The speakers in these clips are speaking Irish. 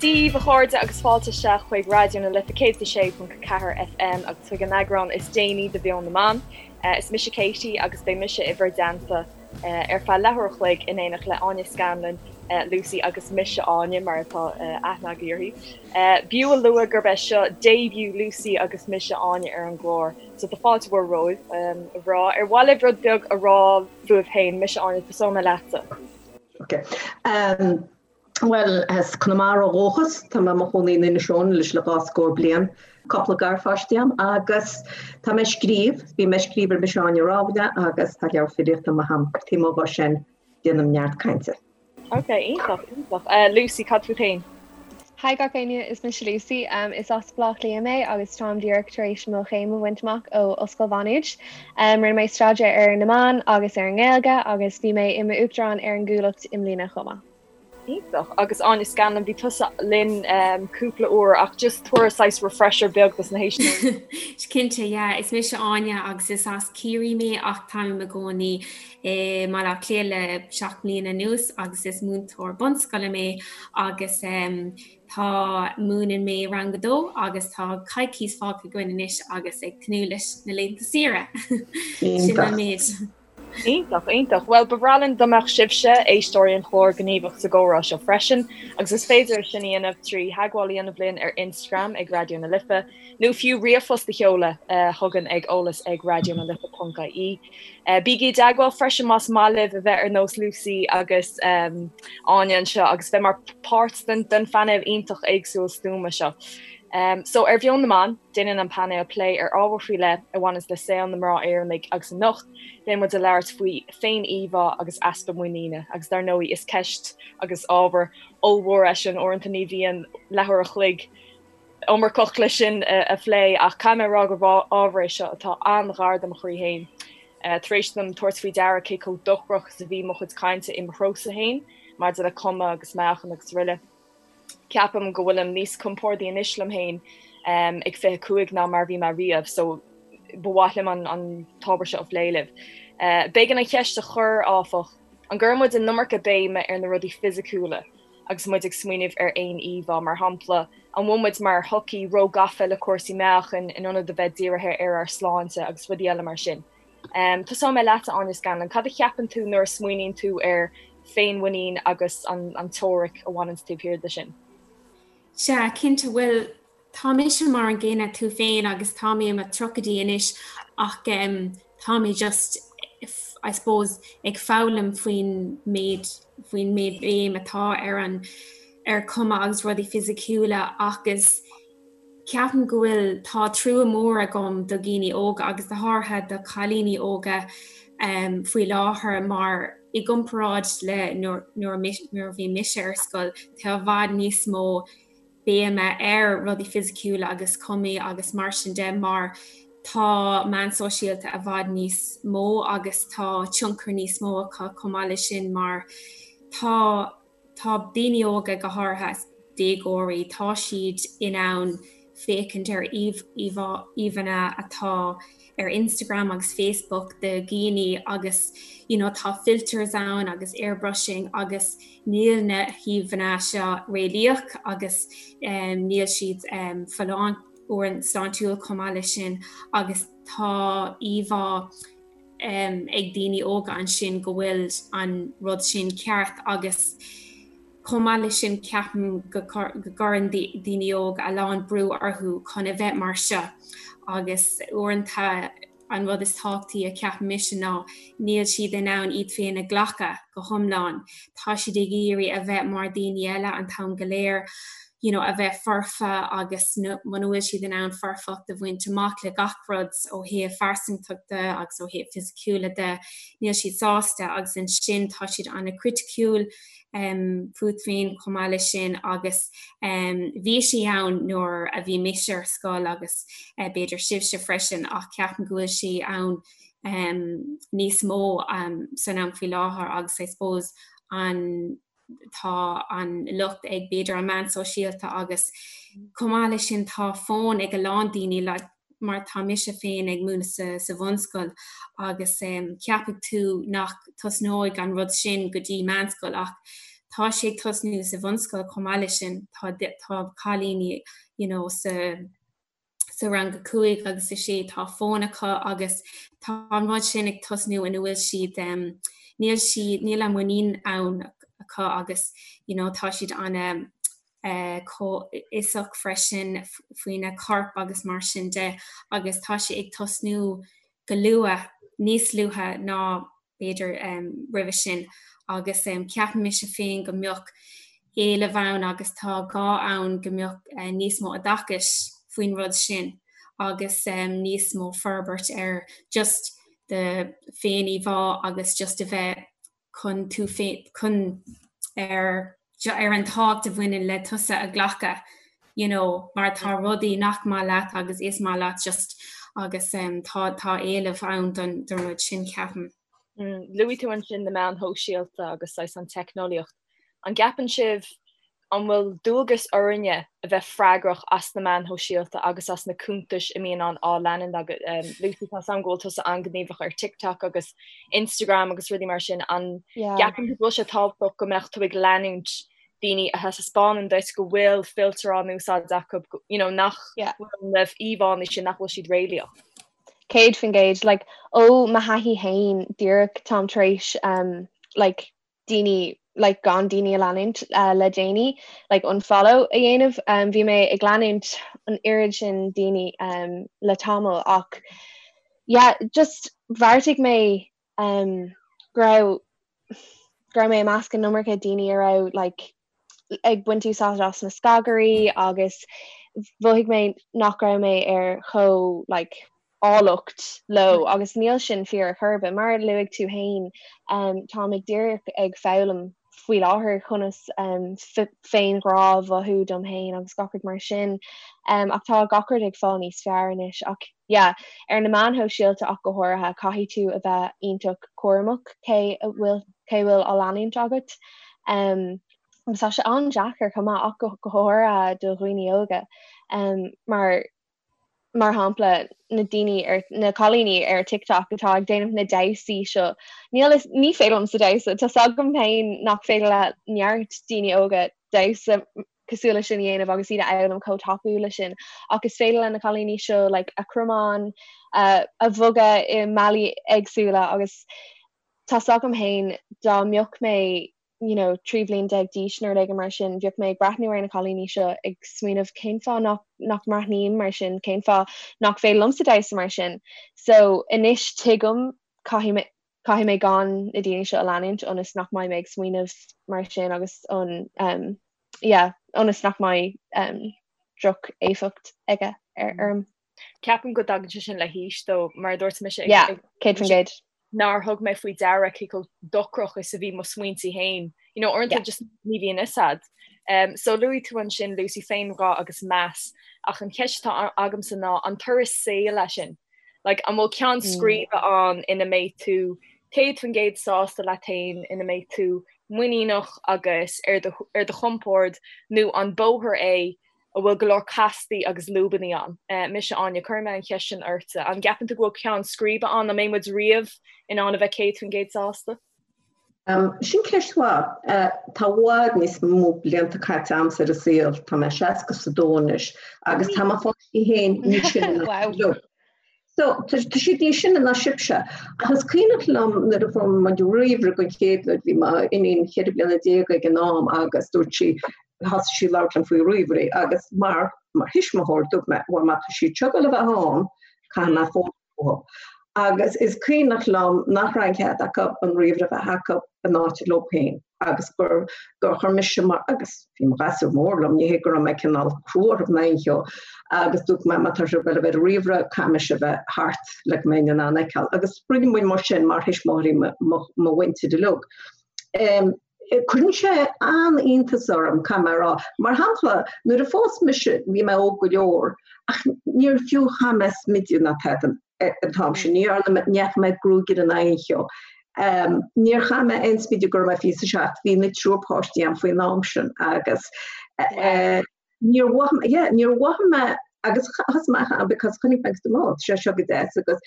Dia daoibh a chairde agus fáilte isteach chuig Raidió na Life 106.4 FM agus chuig an eagrán is déanaí de Mheon na mBan. Is mise Katie agus beidh mise i bhur dteannta ar feadh leathuair a chloig in éineacht le Áine Scanlon, Lucy agus mise Áine mar atá aithne agaibh uirthi. B'fhiú a lua gurb é seo début Lucy agus mise Áine ar an gclár so tá fáilte mhór romhaibh, a mhná. Ar mhaith libh rud beag a rá fúibh féin? Mise Áine, tosóidh mé leatsa. Ok. Bhuel, as Conamara ó dhúchas, tá mé i mo chónaí in Inis Eoghain anois le dhá scór bliain. Cúpla garpháistí agam agus tá mé ag scríobh, bím ag scríobh ar Mise Áine Rámhaille agus tá leabhar filíochta amuigh agam. Taobh amuigh dhe sin, déanaim neart cainte. Ok, iontach, iontach. Lucy, cad fút féin? Hi gach éinne, is mise Lucy. Is as Baile Átha Cliath mé agus táim díreach tar éis mo chéim a bhaint amach ó Ollscoil Mhá Nuad. Rinne mé staidéar ar na meáin agus ar an nGaeilge agus bhí mé i m'uachtarán ar an gCuallacht i mbliana chomh maith. Iontach. Agus Áine Scanlon, bhí tusa linn cúpla uair ach just tabhair saghas refresher beag dos na héisteoirí. Cinnte, yeah. Is mise Áine agus is as Ciarraí mé ach táim i mo chónaí i mBaile Átha Cliath le 7 mbliana anuas agus is múinteoir bunscoile mé agus tá múineann mé rang a dó agus tá coicís fágtha againn anois agus ag tnúth leis na laethanta saoire. Sin an méid. Iontach, iontach. Bhuel, ba bhreá linn dá mbeadh sibhse, éisteoirí an chláir, gníomhach sa gcomhrá seo freisin, agus is féidir é sin a dhéanamh trí theagmháil a dhéanamh linn ar Instagram ag Raidió na Life, nó fiú ríomhphost a sheoladh chugainn ag eolas ag raidionalife.ie. Bígí i dteagmháil freisin más maith libh a bheith ar nós Lucy agus Áine anseo agus bheith mar páirt den phainéal iontach éagsúil stuama seo. So, ar Mheon na mBan, Déanann an painéal plé ar ábhar faoi leith a bhaineanns le saol na mná Éireannaigh agus anocht beidh muid ag labhairt faoi féin-íomhá agus easpa muiníne agus dar ndóigh is ceist agus ábhar ollmhór é sin, uaireanta ní bhíonn leathuair a chloig iomarcach le sin a phlé ach caithfidh mé a rá gur ábhar é seo atá an-ghar do mo chroí féin. Tar éis dom tabhairt faoi deara cé chomh dochrach is a bhí mo chuid cainte i mo threosa féin maidir le cuma agus meáchan agus araile. Ceapaim go bhfuilim níos compordaí anois liom féin ag 25 ná mar a bhí mé riamh so ba mhaith liom an t-ábhar seo a phlé libh. B'éigean an cheist a chur, áfach, an gcuireann muid an iomarca béime ar na rudaí fisiciúla agus muid ag smaoineamh ar fhéin-íomhá? Mar shampla, an bhfuil muid mar shochaí róghafa le cúrsaí meáchain in ionad a bheith dírithe ar ár sláinte agus rudaí eile mar sin? Tosóidh mé leat, a Áine Scanlon. Cad a cheapann tú nuair a smaoiníonn tú ar féinmhuinín agus an teoiric a bhaineanns taobh thiar de sin? Sea, cinnte. Bhuel, tá mise mar an gcéanna tú féin agus tá mé i mo tríochaidí anois ach tá mé just, I suppose, ag foghlaim faoin méid, faoin méid béim atá ar an, ar cuma agus rudaí fisiciúla agus Ceapaim go bhfuil, tá trua mór agam do dhaoine óga agus go háirithe do chailíní óga faoi láthair mar i gcomparáid le nuair a bhí mise ar scoil, tá i bhfad níos mó béime ar rudaí fisiciúla agus cumaí agus mar sin de mar tá meáin sóisialta i bhfad níos mó agus tá tionchar níos mó acu chomh maith leis sin mar tá Tá daoine óga, go háirithe déagóirí, tá siad in ann féachaint ar íomhánna atá ar Instagram agus Facebook de dhaoine agus you know tá filters ann agus airbrushing agus níl na híomhánna seo réalaíoch agus níl siad folláin sláintiúil chomh maith leis sin agus tá íomhá ag daoine óga ansin go bhfuil an rud sin ceart agus chomh maith leis sin ceapaim go gcuireann daoine óga a lán brú orthu chun a bheith mar seo agus uaireanta an rud is tábhachtaí a cheapaim mise ná níl siad in ann iad féin a ghlacadh go hiomlán. Tá siad ag iarraidh a bheith mar daoine eile an t-am go léir. you know, a bheith foirfe agus muna bhfuil siad in ann foirfeacht a bhaint amach le gach rud ó thaobh phearsantachta agus ó thaobh fisiciúla de, níl siad sásta agus ansin tá siad an-chriticiúil um, fút féin chomh maith leis sin agus um, bhí sé ann nuair a bhí mise ar scoil agus uh, b'fhéidir sibhse freisin ach ceapaim go bhfuil sé ann um, níos mó um, san am faoi láthair agus I suppose an tá an locht ag b'fhéidir an meán sóisialta agus chomh maith leis sin tá fón ag a lán daoine like mar tá mise féin ag múineadh sa, sa bhunscoil agus um, ceapfaidh tú nach tosnóidh an rud sin go dtí meánscoil ach Tá sé ag tosnú sa bhunscoil chomh maith leis sin, tá tá cailíní you know sa sa rang 5 agus 6 tá fón acu agus tá an rud sin ag tosnú ina bhfuil siad níl siad níl an muinín ann acu agus you know tá siad ana comhfhiosach freisin faoina corp agus mar sin de agus tá sé ag tosnú go luath, níos luaithe ná b'fhéidir roimhe sin agus ceapann mise féin go mbeadh éileamh ann agus tá gá ann go mbeadh níos mó oideachais faoin rud sin agus níos mó forbairt ar just do féin-íomhá agus just a bheith chun tú féin chun ar ar an tábhacht a bhaineann le tusa a ghlacadh you know mar tá rudaí nach maith leat agus is maith leat just agus um, tá tá éileamh ann don don rud sin ceapaim. Mm, luaigh tú ansin na meáin shóisialta agus saghas an teicneolaíocht. An gceapann sibh An bhfuil dualgas orainne a bheith freagrach as na meáin shóisialta agus as na cuntais a mbíonn á leanúint againn? Lucy, tá 's agam go bhfuil tusa an-ghníomhach ar TikTok agus Instagram agus rudaí mar sin. An gceapann tú go bhfuil sé tábhachtach go mbeadh tú ag leanúint daoine a thaispeánann duit go bhfuil filter á n-úsáid acu, you know, nach bhfuil na íomhánna sin, nach bhfuil siad réalaíoch? 100%, like, ó mo thaithí féin, díreach táim tar éis, um, like, daoine like gan daoine a leanúint le déanaí like unfollow a dhéanamh. Um, bhí mé ag leanúint an oiread sin daoine um, le tamall ach yeah, just bheartaigh mé um, go raibh go raibh mé i measc an iomarca daoine a raibh like ag baint úsáid as na scagairí agus mhothaigh mé nach raibh mé ar chomh like áilleacht leo agus níl sin fíor ar chor ar bith. Mar a luaigh tú féin, táim ag díreach ag foghlaim faoi láthair conas féinghrá a mhothú dom féin agus gach rud mar sin. Ach tá gach rud ag fáil níos fearr anois. Ach yeah, ar na meáin shóisialta ach go háirithe, caithfidh tú a bheith iontach cúramach cé a bhfuil cé a bhfuil á leanúint agat. Agus tá sé an-deacair chomh maith ach go háirithe do dhaoine óga mar mar shampla, na daoine ar, na cailíní ar TikTok atá ag déanamh na damhsaí seo, níl fhios, ní féidir liomsa damhsa, tá 's agam féin nach féidir le neart daoine óga damhsa cosúil leis sin a dhéanamh agus iad a fhoghlaim chomh tapúil leis sin, ach is féidir le na cailíní seo like a gcromáin a, a bhogadh i mbealaí éagsúla agus tá 's agam féin dá mbeadh mé you know, 13 bhliain d'aois nó rud éigin mar sin, bheadh mé ag breathnú ar na cailíní seo ag smaoineamh cén fáth nach, nach mbreathnaím mar sin, cén fáth nach féidir liomsa damhsa mar sin. So anois tuigim caithfidh mé, caithfidh mé gan na daoine seo a leanúint ionas nach mbeidh mé ag smaoineamh mar sin agus an um, yeah, ionas nach mbeidh um, droch-éifeacht aige ar orm. Ceapaim go dtagann sé sin le haois though, mar a dúirt mise ag, Yeah, 100%. nár thug mé faoi deara cé chomh dochrach is a bhí mo smaointe féin. You know, uaireanta yeah. just ní bhíonn fhios a'd. Um, so luaigh tú ansin Lucy féinghrá agus meas ach an cheist atá agamsa ná an turas saoil é sin. Like, an bhfuil ceann mm. scríbe mm. ann ina mbeidh tú 100% sásta leat féin ina mbeidh tú muiníneach agus ar do, ar do chompord nó an bóthar é a bhfuil go leor castaí agus lúbannaí ann. Mise Áine, cuirfidh mé an cheist sin ortsa. An gceapann tú go bhfuil ceann scríbe ann? An mbeidh muid riamh in ann a bheith 100% sásta? Sin ceist mhaith. Tá i bhfad níos mó blianta caite a'msa ar an saol, tá mé 62 anois, agus tá mo pháistí féin níos sine ná Wow. So, tá siad níos sine ná sibhse. Ach is cuimhneach liom nuair a fuair muid ríomhaire den chéad uair, bhí m'iníon 14 bliana ag an am agus dúirt sí, thosaigh sí ag labhairt liom faoi ríomhairí agus mar, mar thuismitheoir dúirt mé, bhuel má tá siad seo ag dul a bheith ann, caithfidh mé foghlaim fúthu. Agus is cuimhneach liom nach raibh an cead acu an ríomhaire a bheith acu in áit leo féin. agus gur gur chuir mise mar agus bhí mo ghasúr mór liom, ní hé go raibh mé cineál crua orthu ná aon cheo, agus dúirt mé má tá sibh ag dul a bheith ar ríomhaire caithfidh mise a bheith thart le go mbeinn in ann a fheiceáil. Agus rinne muid mar sin mar thuismitheoirí mo mo mhuintir uilig. Cuireann sé an-iontas orm, caithfidh mé a rá. Mar shampla, nuair a phós mise bhí mé óg go leor ach níor fiú chaith mé smideadh ná tada. an t-am sin. Ní dhearna mé, ní fhaca mé gruagaire ná aon cheo. Níor chaith mé aon smideadh go raibh mé 27, bhí na triúr páistí a'm faoin am sin agus níor mhothaigh mé, yeah, níor mhothaigh mé agus thosaigh mé a because chonaic mé agus dúirt mé, oh, tá sé seo go deas agus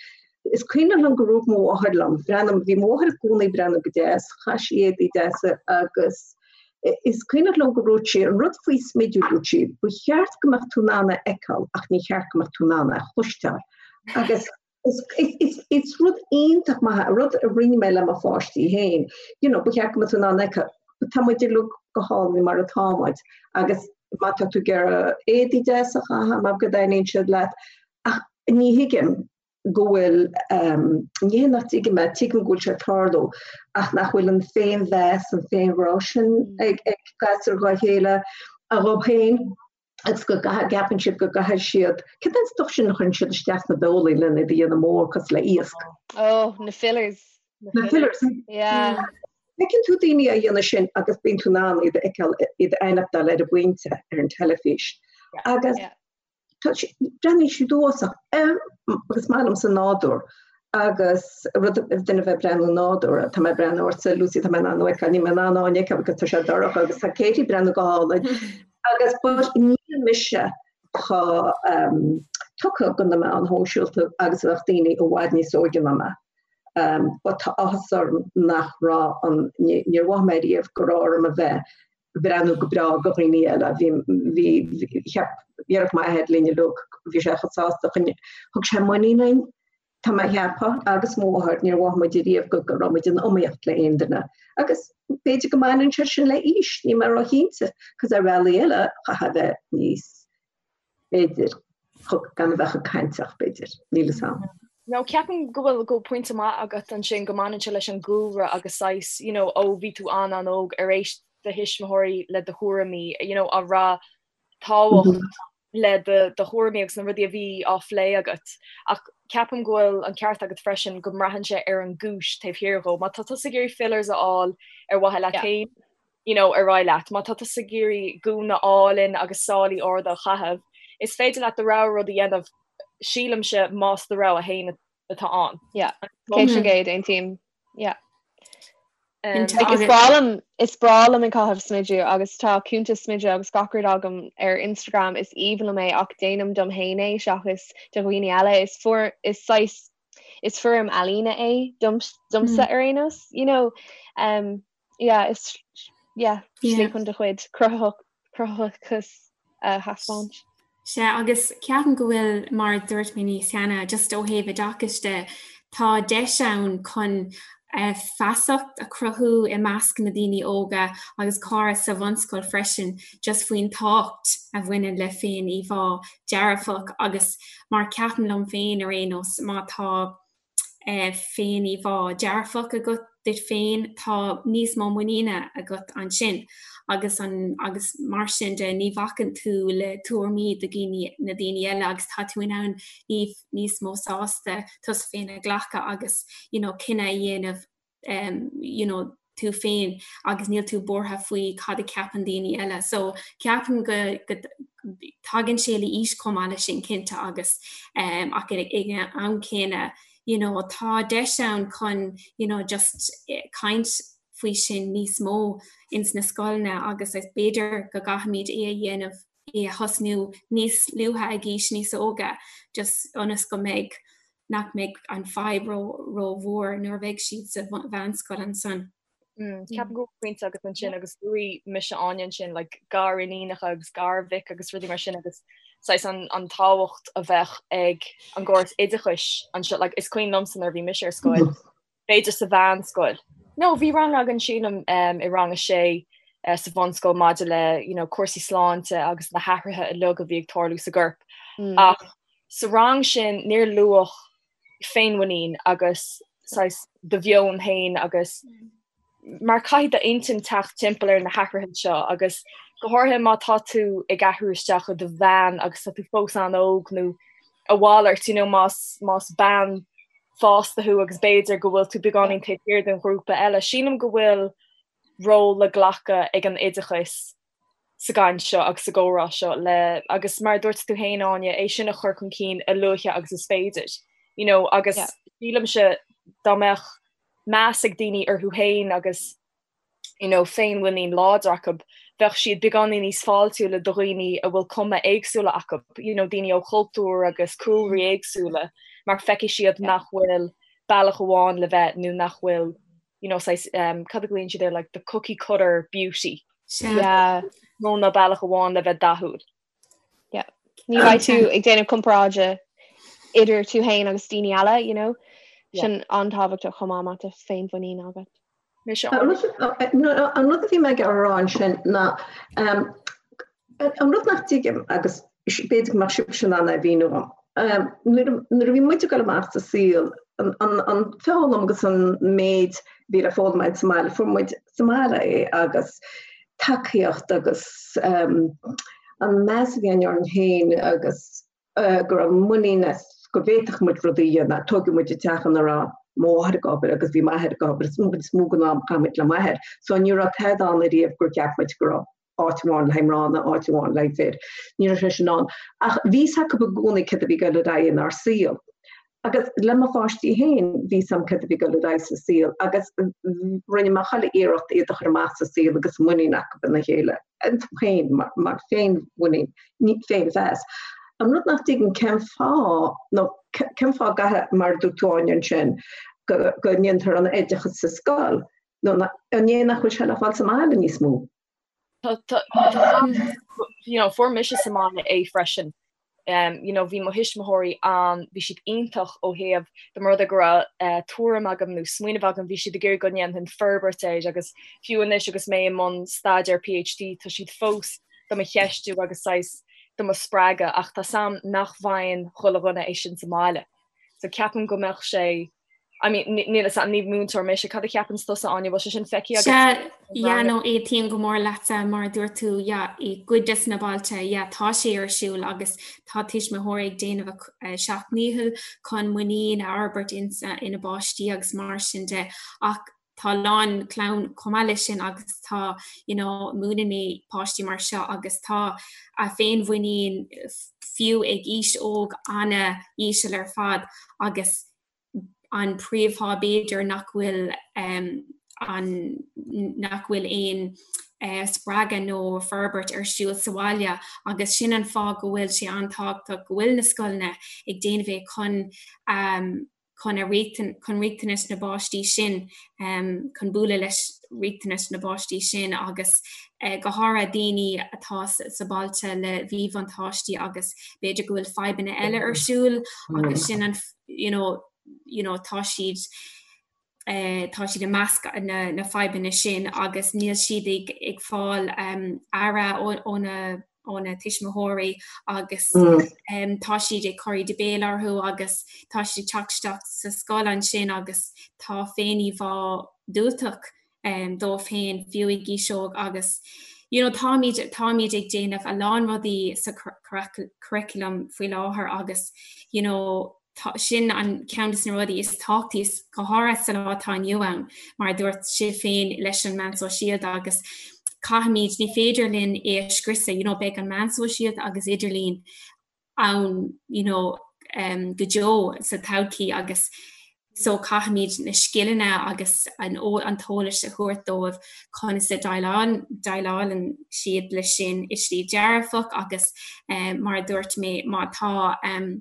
is cuimhin liom gur rug mo mháthair liom, bhreathnaigh, bhí mo mháthair i gcónaí ag breathnú go deas, chaith sí éadaí deasa agus. Is cuimhneach liom go ndúirt sí, an rud faoi smidiú, dúirt sí, ba cheart go mbeadh tú in ann a fheiceáil ach ní cheart go mbeadh tú in ann a chloisteáil. Agus is rud iontach maith, rud a rinne mé le mo pháistí féin, you know, ba cheart go mbeadh tú in ann a fheiceáil, tá muid uilig go hálainn mar atá muid agus má tá tú ag iarraidh éadaí deasa a chaitheamh mar go dtaitníonn siad leat, ach ní thuigim go bhfuil, ní hé nach dtuigim é, tuigim go bhfuil sé ag tarlú ach nach bhfuil an féinmheas, an féinghrá sin ag gasúir dhá chéile a dhóibh féin. agus go gceapann siad go gcaithfidh siad, cad é an stuif sin a chuireann siad isteach sna beolaí lena iad a dhéanamh mór cosúil le iasc? Oh, na fillers. Na fillers. Yeah. Feiceann tú daoine á dhéanamh sin agus bíonn tú in ann iad a fheiceáil, iad a aithneachtáil ar an bpointe ar an teilifís. Agus breathnaíonn siad uafásach agus maith liomsa nádúr agus rud duine bheith breathnú nádúr, tá mé breathnú ortsa Lucy tá mé in ann thú a fheiceáil, níl mé in ann Áine a fheiceáil because tá sé dorcha agus tá Katie ag breathnú go hálainn. Agus but níl mise chomh tugtha do na meáin shóisialta agus a bheadh daoine i bhfad níos óige ná mé. But tá áthas orm nach raibh an, níor mhothaigh mé riamh go raibh orm a bheith ag breathnú go breá do dhaoine eile. Bhí, bhí, cheap, dhéarfadh m'athair linn uilig, bhí sé chomh sásta, thug sé muinín dúinn, tá mé a cheapadh, agus mo mháthair, níor mhothaigh muid ariamh go go raibh muid in iomaíocht le aon duine. Agus b'fhéidir go mbaineann sé sin le aois, níl mé róchinnte, cos ar bhealaí eile, chaithfeá a bheith níos, b'fhéidir, gan a bheith chomh cainteach, b'fhéidir, níl fhios a'm. No, ceapaim go bhfuil go pointe maith agat ansin go mbaineann sé leis an gcúlra agus saghas, you know, ó bhí tú an-an-óg ar éist do thuismitheoirí le do thuairimí, you know, an raibh tábhacht le do thuairimí agus na rudaí a bhí á phlé agat. Ach ceapaim go bhfuil an ceart agat freisin go mbraitheann sé ar an gcúis taobh thiar dhó. Má tá tusa ag iarraidh fillers a fháil ar mhaithe leat féin, you know, ar aghaidh leat. Má tá tusa ag iarraidh gúna álainn agus sálaí arda a chaitheamh, is féidir leat do rogha rud a dhéanamh, sílimse, más do rogha féin atá ann. Yeah, 100%, aontaím. Yeah. Like, is breá liom is breá liom ag caitheamh smideadh agus tá cuntas smideadh agus gach rud agam ar Instagram is aoibhinn liom é ach déanaim dom féin é seachas do dhaoine eile is fuair is saghas is foirm ealaíne é dom domsa ar aon nós you know um, yeah is yeah slí chun do chuid cruthaitheach cruthaitheachas a thaispeáint. Sea, agus ceapaim go bhfuil, mar a dúirt mé níos cheana, just ó thaobh oideachais de, tá deis ann chun feasacht a chruthú i measc na daoine óga agus córas sa bhunscoil freisin just faoin tábhacht a bhaineann le féin-íomhá dearfach agus mar ceapaim liom féin ar aon nós má tá féin-íomhá dearfach agat duit féin, tá níos mó muiníne agat ansin agus an agus mar sin de ní bhacann tú le tuairimí do dhaoine na daoine eile agus tá tú in ann níos mó sásta tusa féin a ghlacadh agus you know cinneadh a dhéanamh um, you know, tú féin agus níl tú buartha faoi cad a ceapann daoine eile. So ceapaim go, go tagann sé le aois chomh maith leis sin cinnte agus um, ach ag an am céanna you know, tá deis ann chun you know, just eh, caint faoi sin níos mó ins na scoileanna agus is b'fhéidir go gcaithfimid é a dhéanamh é a thosnú níos luaithe ag aois níos óige just ionas go mbeidh nach mbeidh an fadhb ró rómhór nuair a bheidh siad sa mheánscoil ansan. Mm, ceapaim go bhfuil pointe agat ansin agus luaigh mise Áine ansin like, gariníonacha agus garmhic agus rudaí mar sin agus saghas an, an tábhacht a bheadh ag an gcóras oideachais anseo like, is cuimhin liomsa nuair a bhí mise ar scoil b'fhéidir sa mheánscoil. No, bhí rang againn sílim i rang a sé sa bhunscoil maidir le you know, cúrsaí sláinte agus na hathruithe uilig a bhí ag tarlú sa gcorp. Mm. Ach sa rang sin níor luadh féinmhuinín agus saghas do mheon féin agus mm. mar caithfidh d'intinn teacht timpeall ar na hathruithe seo agus go háirithe má tá tú ag athrú isteach i do mheán agus tá tú fós an-óg nó a mhalairt, you know, más, más bean fásta thú agus b'fhéidir go bhfuil tú beagáinín taobh thiar den ghrúpa eile. Sílim go bhfuil ról le glacadh ag an oideachas sa gcaint seo agus sa gcomhrá seo le agus mar a dúirt tú féin Áine, é sin a chur chun cinn a luaithe agus is féidir. You know, agus sílimse dá mbeadh meas ag daoine orthu féin agus you know, féinmhuinín láidir acu, bheadh siad beagáinín níos fáiltiúla do dhaoine a bhfuil cuma éagsúla acu, you know, daoine ó chultúir agus cúlraí éagsúla, mar feicfidh siad nach bhfuil bealach amháin le bheith nó nach bhfuil, you know, saghas, um, cad a ghlaonn siad air, like the cookie cutter beauty. Sea. Nó ná bealach amháin le bheith dathúil. Yeah. Ní bheidh tú ag déanamh comparáide idir tú féin agus daoine eile, you know. Sin an-tábhachtach chomh maith má tá féinmhuinín agat. An rud a bhí mé ag rá ansin ná an rud nach dtuigim agus b'fhéidir go mbeadh sibhse in ann é a mhíniú dom. Nuair a bhí muid ag dul amach sa saol, an foghlaim agus an méid a bhí le foghlaim againn sa mbaile, fuair muid sa mbaile é agus tacaíocht agus an meas a bhí againn orainn féin agus go raibh muinín as go bhféadfadh muid rudaí a dhéanamh. Tógadh muid i dteach ina raibh mo mháthair ag obair agus bhí m'athair ag obair is is mó den am chaith muid le m'athair. So ní raibh tada ann ariamh gur cheap muid go raibh áit amháin le haghaidh mná nó áit amháin le haghaidh fir. Ní raibh sé sin ann. Ach bhí fhios acu i gcónaí céard a bhí ag dul ar aghaidh inár saol. Agus le mo pháistí féin, bhí fhios a'm céard a bhí ag dul ar aghaidh sa saol agus rinne mé chuile iarracht iad a chur amach sa saol agus muinín acu ina chéile, iontu féin, mar féinmhuinín, féinmheas. An rud nach dtuigim cén fáth, nó cén fáth gcaithfidh, mar a dúirt tú Áine ansin, go go ndéantar an oideachas sa scoil, nó an é nach bhfuil sé le fáil sa mbaile níos mó? You know, fuair mise sa mbaile é freisin. Um, you know, bhí mo thuismitheoirí an, bhí siad iontach ó thaobh dá mba rud é go raibh uh, tuairim agam nó smaoineamh agam, bhí siad ag iarraidh go ndéanfainn forbairt air agus fiú anois agus mé i mbun staidéar PhD tá siad fós do mo cheistiú agus saghas do mo spreagadh ach tá 's a'm nach bhfaigheann chuile dhuine é sin sa mbaile. So ceapaim go mbeadh sé I mean, níl 'fhios a'm, ní múinteoir mise, cad a cheapann tusa Áine, bhfuil sé sin feicthe agat? Sea, yeah, no, aontaím go mór leatsa, mar a dúirt tú, yeah, i gcuid des na bailte, yeah, tá sé ar siúl agus tá tuismitheoirí ag déanamh a seacht ndícheall chun muinín a fhorbairt ina bpáistí agus mar sin de, ach tá a lán clann chomh maith leis sin agus tá, you know, múineann mé páistí mar seo agus tá a féinmhuinín fiú ag aois óg ana-íseal ar fad agus an príomhfháth b'fhéidir nach bhfuil an nach bhfuil aon spreagadh nó forbairt ar siúl sa bhaile agus sin an fáth go bhfuil sé an-tábhachtach go bhfuil na scoileanna ag déanamh é chun chun a chun riachtanais na bpáistí sin chun bualadh leis riachtanais na bpáistí sin agus go háirithe daoine atá sa bailte le mhíbhuntáistí agus b'fhéidir go bhfuil fadhbanna eile ar siúl agus sin an you know, you know, tá siad eh, tá siad i measc na, na fadhbanna sin agus níl siad ag, ag fáil um, aire ó na ó na tuismitheoirí agus mm. um, tá siad ag cur íde béil orthu agus tá siad ag teacht isteach sa scoil ansin agus tá féin-íomhá diúltach um, dóibh féin fiú ag aois óg agus you know, táimid táimid ag déanamh a lán rudaí sa curriculum faoi láthair agus you know, tá sin an ceann de na rudaí is tábhachtaí is go háirithe sa lá atá inniu ann mar a dúirt sibh féin leis an meán sóisialta agus caithfimid ní féidir linn é a scriosadh you know, beidh an meán sóisialta agus idirlíon ann you know, um, go deo sa todhchaí agus so caithfimid na scileanna agus an, an t-eolas a thabhairt dóibh conas a déileálann siad leis sin i slí dearfach agus um, mar a dúirt mé má tá um,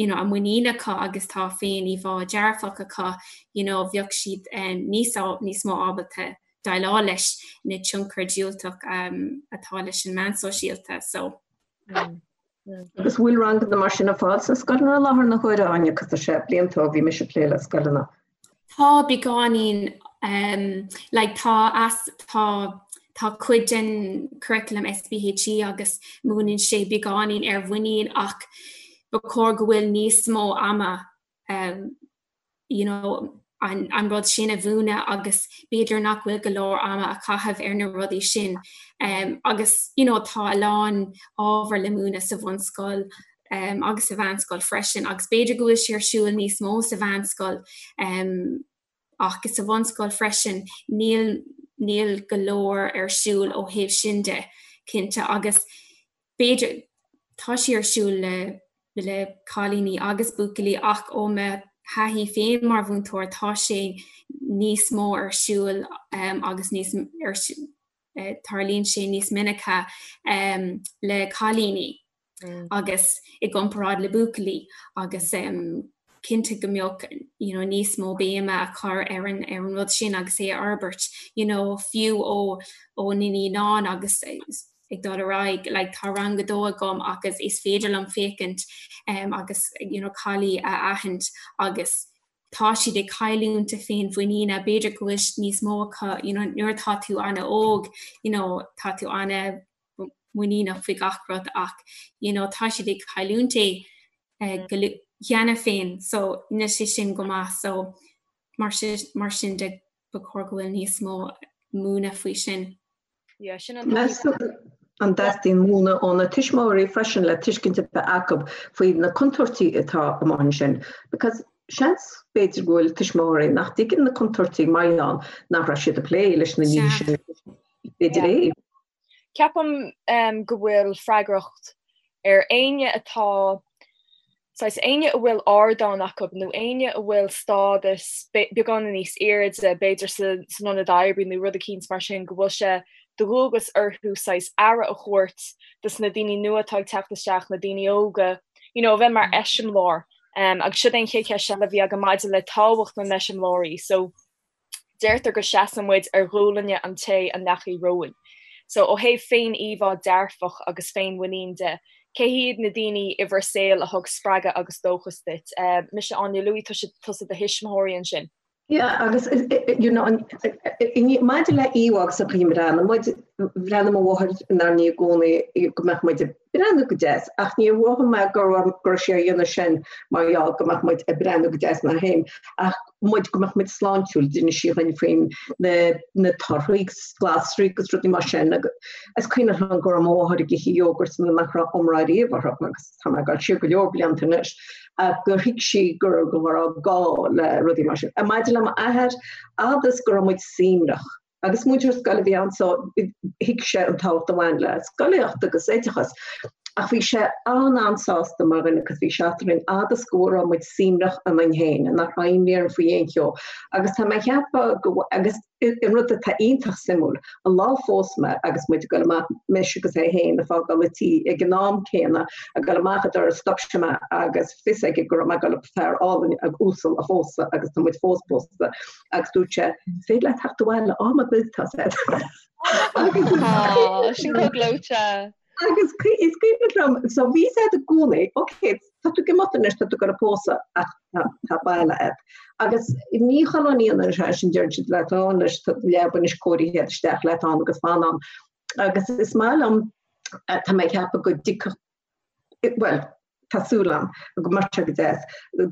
you know, a muinín acu agus tá féin-íomhá dearfach acu, you know, bheadh siad um, níos, níos mó ábalta déileáil leis na tionchar diúltach um, atá leis an meán sóisialta. So. Mm. Mm. Agus bhfuil ranganna mar sin ar fáil sna scoileanna i láthair na huaire Áine cos tá sé blianta ó bhí mise ag plé le scoileanna. Tá beagáinín um, like, tá as tá tá cuid den curriculum SPHE agus múineann sé beagáinín ar mhuinín ach ba chóir go bhfuil níos mó ama um, you know, an, an rud sin a mhúineadh agus b'fhéidir nach bhfuil go leor ama a chaitheamh ar na rudaí sin. Um, agus you know, tá a lán ábhar le múineadh sa bhunscoil um, agus sa mheánscoil freisin, agus b'fhéidir go bhfuil sé ar siúl níos mó sa mheánscoil um, ach sa bhunscoil freisin níl níl go leor ar siúl ó thaobh sin de cinnte agus b'fhéidir tá sé ar siúl le le cailíní agus buachaillí ach ó mo thaithí féin mar mhúinteoir tá sé níos mó ar siúl um, agus níos ar eh, tarlaíonn sé níos minice um, le cailíní mm. agus i gcomparáid le buachaillí agus um, Cinnte go mbeadh you know níos mó béime á chur ar an ar an rud sin agus é a fhorbairt you know fiú ó ó na naíonáin agus ag dul ar aghaidh like tá rang a dó agam agus is féidir liom féachaint um, agus you know caillí a aithint agus tá siad ag cailliúint a féinmhuiníne b'fhéidir go bhfuil níos mó acu you know nuair atá tú an-óg you know tá tú ana muiníneach faoi gach rud ach you know tá siad ag cailliúint é eh, go cheana féin so níl sé sin go maith so mar sin mar sin de ba chóir go bhfuil níos mó múineadh faoi sin. Yeah, sin an Meas tú an dteastaíonn múineadh ó na tuismitheoirí freisin le tuiscint a bheith acu faoi na contúirtí atá amuigh ansin? Because seans b'fhéidir go bhfuil tuismitheoirí nach dtuigeann na contúirtí mar gheall nach raibh siad ag plé leis na nithe sin. B'fhéidir é. Ceapaim go bhfuil freagracht ar éinne atá, saghas, éinne a bhfuil ardán acu nó éinne a bhfuil stádas beagán níos airde, b'fhéidir san ionad oibre nó rud eicínt mar sin, go bhfuil sé de dhualgas orthu saghas aire a thabhairt dos na daoine nua atá ag teacht isteach, na daoine óga, you know, a bheith mar eiseamláir. Agus siod é an chéad cheist eile a bhí agam maidir le tábhacht na n-eiseamláirí. So. Deirtear go seasann muid ar ghualainne an té a ndeachaigh romhainn. So, ó thaobh féin-íomhá dearfach agus féin-mhuinín de, cé hiad na daoine i bhur saol a thug spreagadh agus dóchas duit? Mise Áine, luaigh tusa do thuismitheoirí ansin. Yeah, agus you know, maidir le íomhá agus an chaoi a mbreathnaíonn muid, bhreathnaigh mo mháthair inár ndiaidh i gcónaí go mbeadh muid ag breathnú go deas, ach níor mhothaigh mé go raibh go raibh sí á dhéanamh sin mar gheall go mbeadh muid ag breathnú go deas inár féin, ach muid go mbeadh muid sláintiúil, d'inis sí dhuinn faoin na na torthaí agus glasraí agus rudaí mar sin agus is cuimhin liom go raibh mo mháthair ag ithe yogurt nach raibh iomrá riamh orthu agus tá mé ag dul siar go leor blianta anois ach gur thuig sí go go raibh gá le rudaí mar sin. Maidir le m'athair, fhad is go raibh muid suaimhneach, Agus múinteoir scoile a bhí ann so thuig sé an tábhacht a bhain le scolaíocht agus oideachas. Ach bhí sé an-an-sásta mar dhuine agus bhí sé eadrainn fhad is go raibh muid suaimhneach ionainn féin, nach raibh imní orainn faoi aon cheo. Agus tá mé ag ceapadh go agus an rud atá iontach suimiúil, an lá a phós mé agus muid ag dul amach, mise agus é féin ag fágáil an tí ag an am céanna, ag dul amach an doras, stop sé mé agus fios aige go raibh mé ag dul fear álainn uasal a phósadh agus tá muid fós pósta. Agus dúirt sé, Is féidir leat teacht abhaile am ar bith tá sé. Sin chomh gleoite. Agus is cuimhin liom, so bhí sé i gcónaí, ok, tá tú ag imeacht anois, tá tú ag dul a pósadh ach tá baile agat. Agus ní chuile ní an sé sin deireann siad leat á anois tá leaba anois cóirithe isteach leat ann agus fan ann. Agus is maith liom tá mé ag ceapadh go dtiocfadh bhuel, tá súil agam go mbeadh sé go deas,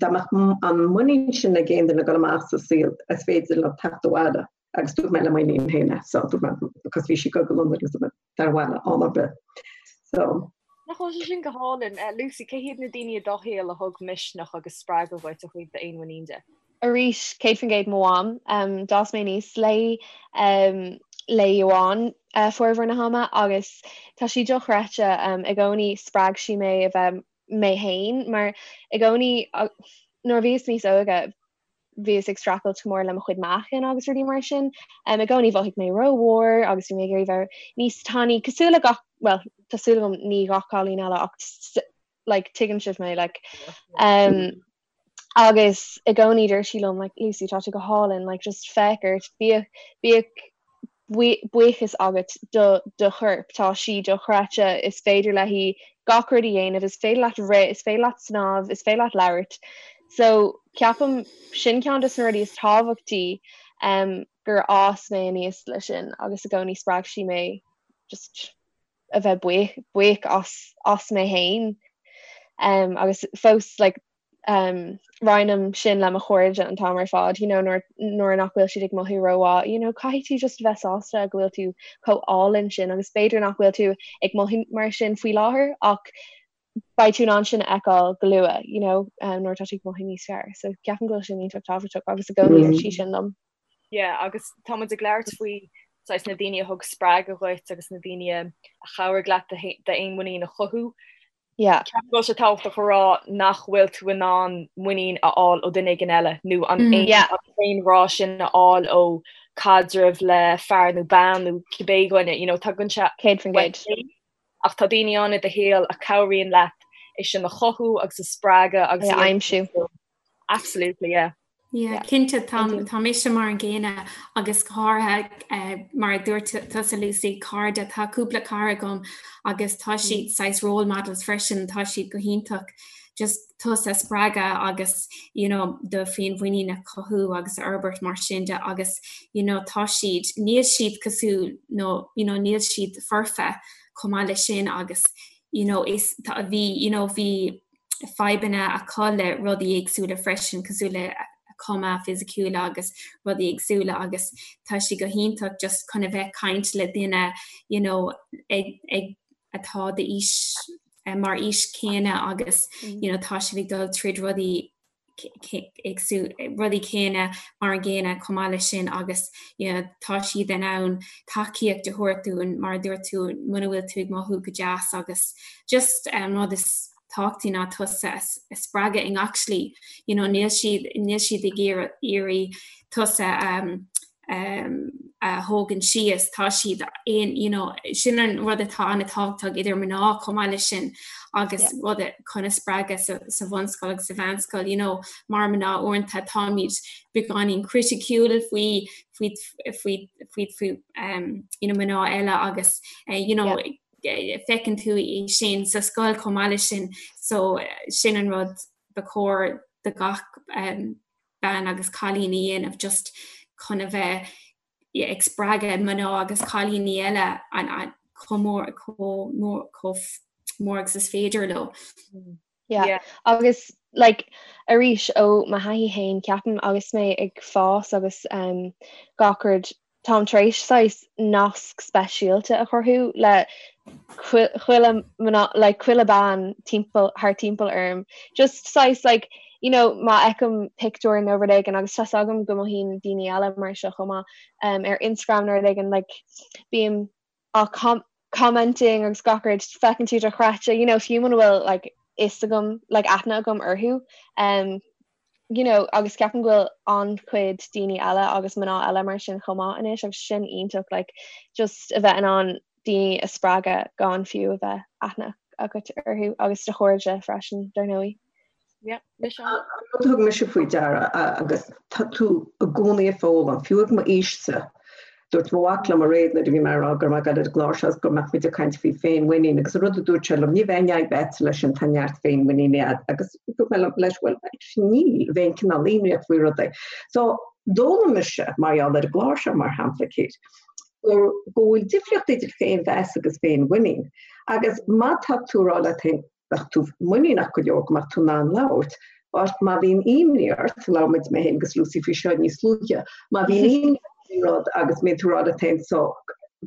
dá mbeadh an muinín sin ag aon duine ag dul amach sa saol, is féidir leo teacht abhaile agus dúirt mé le m'iníon féin é, so dúirt mé, because bhí sí ag dul go Londain agus dúirt mé, tar abhaile am ar bith. So. Nach bhfuil sé sin go hálainn? Lucy, cé hiad na daoine i do shaol a thug misneach agus spreagadh dhuit ó thaobh d'fhéinmhuinín de? Arís, 100% mo mham. D'fhás mé aníos léi, léi amháin formhór na hama agus tá sí dochreidte. I gcónaí spreag sí mé a bheith mé féin mar i gcónaí nuair a bhíos níos óige bhíos ag streachailt go mór le mo chuid meáchain agus rudaí mar sin. I gcónaí mhothaigh mé rómhór agus bhí mé ag iarraidh bheith níos tanaí cosúil le gach, bhuel, tá súil agam ní gach cailín eile ach like tuigeann sibh mé like um, agus i gcónaí deir sí liom like Lucy tá tú go hálainn like just féach ort bíodh bíodh buíochas agat do do chorp tá sí dochreidte is féidir léi gach rud a dhéanamh is féidir leat rith is féidir leat snámh is féidir leat labhairt so ceapaim sin ceann de na rudaí is tábhachtaí um, gur fhás mé aníos le sin agus i gcónaí spreag sí mé just a bheith buíoch buíoch as as mé féin um, agus fós like, um, roinnim sin le mo chairde an t-am ar fad you know, nuair, nuair nach bhfuil siad ag mothú rómhaith you know, caithfidh tú just a bheith sásta go bhfuil tú chomh álainn sin agus b'fhéidir nach bhfuil tú ag mothú mar sin faoi láthair ach beidh tú in ann sin a fheiceáil go luath you know, um, nuair atá tú ag mothú níos fearr. So ceapaim go bhfuil sin iontach tábhachtach agus i gcónaí mm. sí sin liom. Yeah, agus tá muid ag labhairt faoi saghas na daoine a thug spreagadh dhuit agus na daoine a chabhraigh leat d'fhéinmhuinín a chothú. Yeah. Ceapaim go bhfuil sé tábhachtach a rá nach bhfuil tú in ann muinín a fháil ó duine éigin eile nó an mm, yeah. féinghrá sin a fháil ó caidreamh le fear nó bean nó cibé dhuine, you know, tagann sé 100%. Ach tá daoine ann i do shaol a chabhraíonn leat é sin a chothú agus a spreagadh agus a aimsiú. Absolutely, yeah. Yeah, cinnte tá tá mise mar an gcéanna agus go háirithe mar a dúirt tusa Lucy, cairde, tá cúpla cara agam agus tá siad saghas role models freisin, tá siad go hiontach just tusa a spreagadh agus you know do féinmhuinín a chothú agus a fhorbairt mar sin de agus you know tá siad, níl siad cosúil nó you know níl siad foirfe chomh maith leis sin agus you know is tá bhí you know bhí fadhbanna acu le rudaí éagsúla freisin, cosúil le cuma fisiciúla agus rudaí éagsúla agus tá sé go hiontach just chun a bheith caint le duine you know ag ag atá d'aois mar aois céanna agus you know tá siad ag dul tríd rudaí éagsúla rudaí céanna mar an gcéanna chomh maith leis sin agus you know tá siad in ann tacaíocht a thabhairt dúinn mar a dúirt tú muna bhfuil tú ag mothú go deas agus just an rud is tábhachtaí ná tusa a spreagadh i ngach slí you know níl siad níl siad ag iarraidh tusa a thógaint síos tá siad aon you know sin an rud atá an-tábhachtach idir mná chomh maith leis sin agus rud chun a spreagadh sa, sa bhunscoil agus sa mheánscoil you know mar mná uaireanta táimid beagáinín criticiúil faoi faoi faoi faoi faoi um, you know mná eile agus uh, you know yeah. Feiceann tú é sin sa scoil chomh maith leis sin so sin an rud ba chóir do gach bean agus cailín a dhéanamh just chun a bheith ag spreagadh mná agus cailíní eile chomh mór chomh mór chomh mór agus is féidir leo. Yeah. Yeah. Agus like arís ó mo thaithí féin ceapaim agus mé ag fás agus um, gach rud táim tar éis saghas nasc speisialta a chruthú le chuile mná like chuile bean timpeall thar timpeall orm. Just saghas like you know má fheicim pictiúr nó rud éigin agus tá's agam go mothaíonn daoine eile mar seo chomh maith um, ar Instagram nó rud éigin like bím á commenting agus gach rud feiceann tú dochreidte you know fiú muna bhfuil like fhios agam like aithne agam orthu um you know agus ceapaim go bhfuil an-chuid daoine eile agus mná eile mar sin chomh maith anois agus sin iontach like just a bheith in ann daoine a spreagadh gan fiú a bheith aithne agat orthu agus do chairde freisin dar ndóigh. Yeah, mise. An rud a thug mise faoi deara agus tá tú i gcónaí ag foghlaim, fiú ag m'aois-sa, dúirt mo mhac liom aréir nuair a bhí mé ag rá go raibh mé ag dul ar an gclár seo agus go mbeadh muid ag caint faoi féinmhuinín agus an rud a dúirt sé liom, ní bheidh aon fhadhb agat leis sin, tá neart féinmhuiníne agat agus dúirt mé leis, bhuel, actually níl, bheinn cineál imníoch faoi rudaí. So, d'fhoghlaim mise, mar gheall ar an gclár seo, mar shampla, Kate, go bhfuil difríocht idir féinmheas agus féinmhuinín agus má tá tú ag rá leat féin, bheadh tú muiníneach go leor go mbeadh tú in ann labhairt, but má bhíonn imní ort, labhair muid mé féin agus Lucy faoi seo níos luaithe, má bhíonn imní ort faoin rud agus mbíonn tú ag rá leat féin so,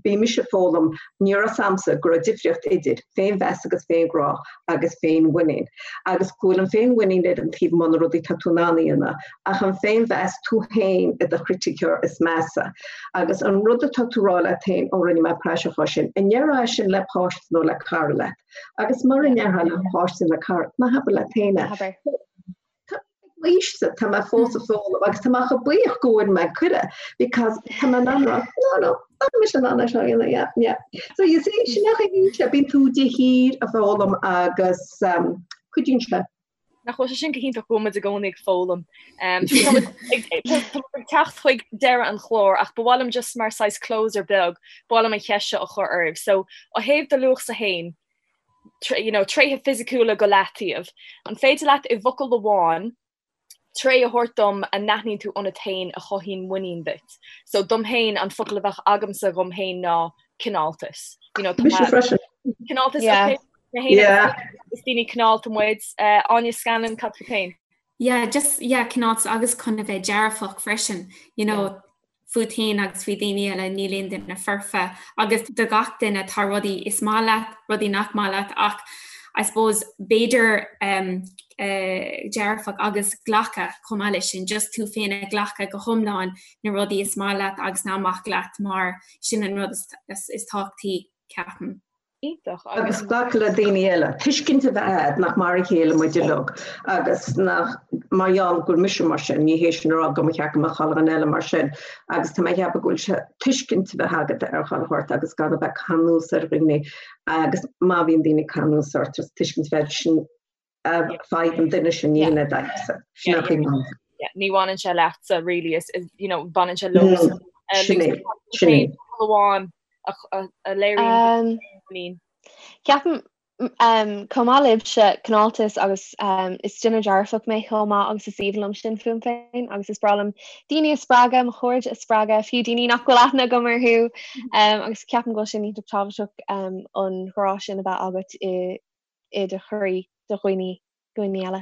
bhí mise ag foghlaim, ní raibh 'fhios a'msa go raibh difríocht idir féinmheas agus féinghrá agus féinmhuinín agus go bhfuil an féinmhuinín ar an taobh amuigh na rudaí tá tú in ann a dhéanamh ach an féinmheas tú féin i do chriticeoir is measa agus an rud atá tú ag rá leat féin ó rinne mé praiseach as sin, an ndéarfá é sin le páiste nó le cara leat? Agus mura ndéarfá le páiste nó le cara, ná habair leat féin é. Habair. Tá m'aois-sa, tá mé fós ag foghlaim agus tá mé chomh buíoch go bhfuair mé cuireadh because tá mé in ann rá, no, no, tá mise in ann é seo a dhéanamh, yeah, yeah. So you see, sin é an chaoi, bíonn tú de shíor ag foghlaim agus um, cuidíonn sé. Nach bhfuil sé sin go hiontach go bhfuil muid i gcónaí ag foghlaim. Tá muid ag teacht chuig deireadh an chláir ach ba mhaith liom just mar saghas closer beag, ba mhaith liom an cheist seo a chur oraibh. So ó thaobh do luachsa féin, you know, tréithe fisiciúla go leataobh, an féidir leat i bhfocal amháin tréith a thabhairt dom a n-aithníonn tú ionat féin a chothaíonn muinín duit? So dom féin an focal a bheadh agamsa dhom féin ná cineáltas. You know, Mise freisin. Cineáltas, yeah. okay. Yeah. Is daoine cineálta muid. Uh, Áine Scanlon, cad fút féin? Yeah, just yeah, cineáltas agus chun a bheith dearfach freisin, you know, yeah. fút féin agus faoi daoine eile níl aon duine foirfe agus do gach duine tá rudaí is maith leat, rudaí nach maith leat ach I suppose b'fhéidir um, uh, dearfach agus glacadh chomh maith leis sin, just tú féin a ghlacadh go hiomlán na rudaí is maith leat agus nach maith leat mar sin an rud is, is, is tábhachtaí ceapaim. Iontach. Agus glacadh le daoine eile. Tuiscint a bheith agat nach mar a chéile muid uilig agus nach, mar gheall go bhfuil mise mar sin, ní hé sin a rá go mba cheart go mbeadh chuile dhuine eile mar sin. Agus tá mé ag ceapadh go bhfuil sé tuiscint a bheith agat ar chuile shórt agus gan a bheith ag cur anuas ar dhaoine agus má bhíonn daoine ag cur anuas ort, tuiscint a bheith sin. Fadhb an duine sin ní hé d'fhadhbsa. Sin é an chaoi. Ní bhaineann sé leatsa really is you know baineann sé leo. Sin é, sin é. Amháin a léiríonn muinín. Ceapaim chomh maith libhse cineáltas agus is duine dearfach mé chomh maith agus is aoibhinn liom sin fúm féin agus is breá liom daoine a spreagadh, mo chairde a spreagadh, fiú daoine nach bhfuil aithne agam orthu agus ceapaim go bhfuil sin iontach tábhachtach an grá sin a bheith agat i i do chroí do dhaoine dhaoine eile.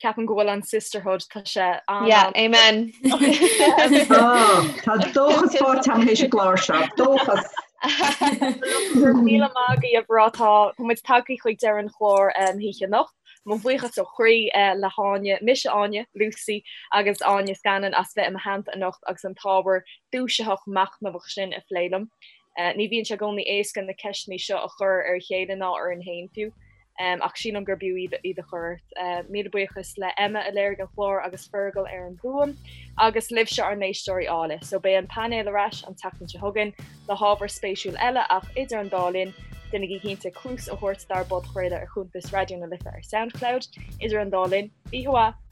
Ceapaim go bhfuil an sisterhood tá sé an Yeah, amen. Tá dóchas faighte agam théis an gclár seo, dóchas! Míle maith agaibh a mhná tá muid tagtha chuig deireadh an chláir na hoíche anocht. Mo bhuíochas ó chroí le hÁine, mise Áine, Lucy agus Áine Scanlon as bheith i mo theannta anocht agus an t-ábhar dúisitheach machnamhach sin a phlé liom. Ní bhíonn sé i gcónaí éasca na ceisteanna seo a chur ar a chéile ná orainn féin fiú, ach sílim gur b'fhiú iad a chur ort. Míle buíochas le Emma a léirigh an clár agus Fergal ar an bhfuaim, agus libhse ár n-éisteoirí áille. So beidh an painéal ar ais an tseachtain seo chugainn le hábhar spéisiúil eile ach idir an dá linn, déanaigí cinnte cluas a thabhairt dár bpodchraoladh ar chuntas Raidió na Life ar Soundcloud. Idir an dá linn, oíche mhaith!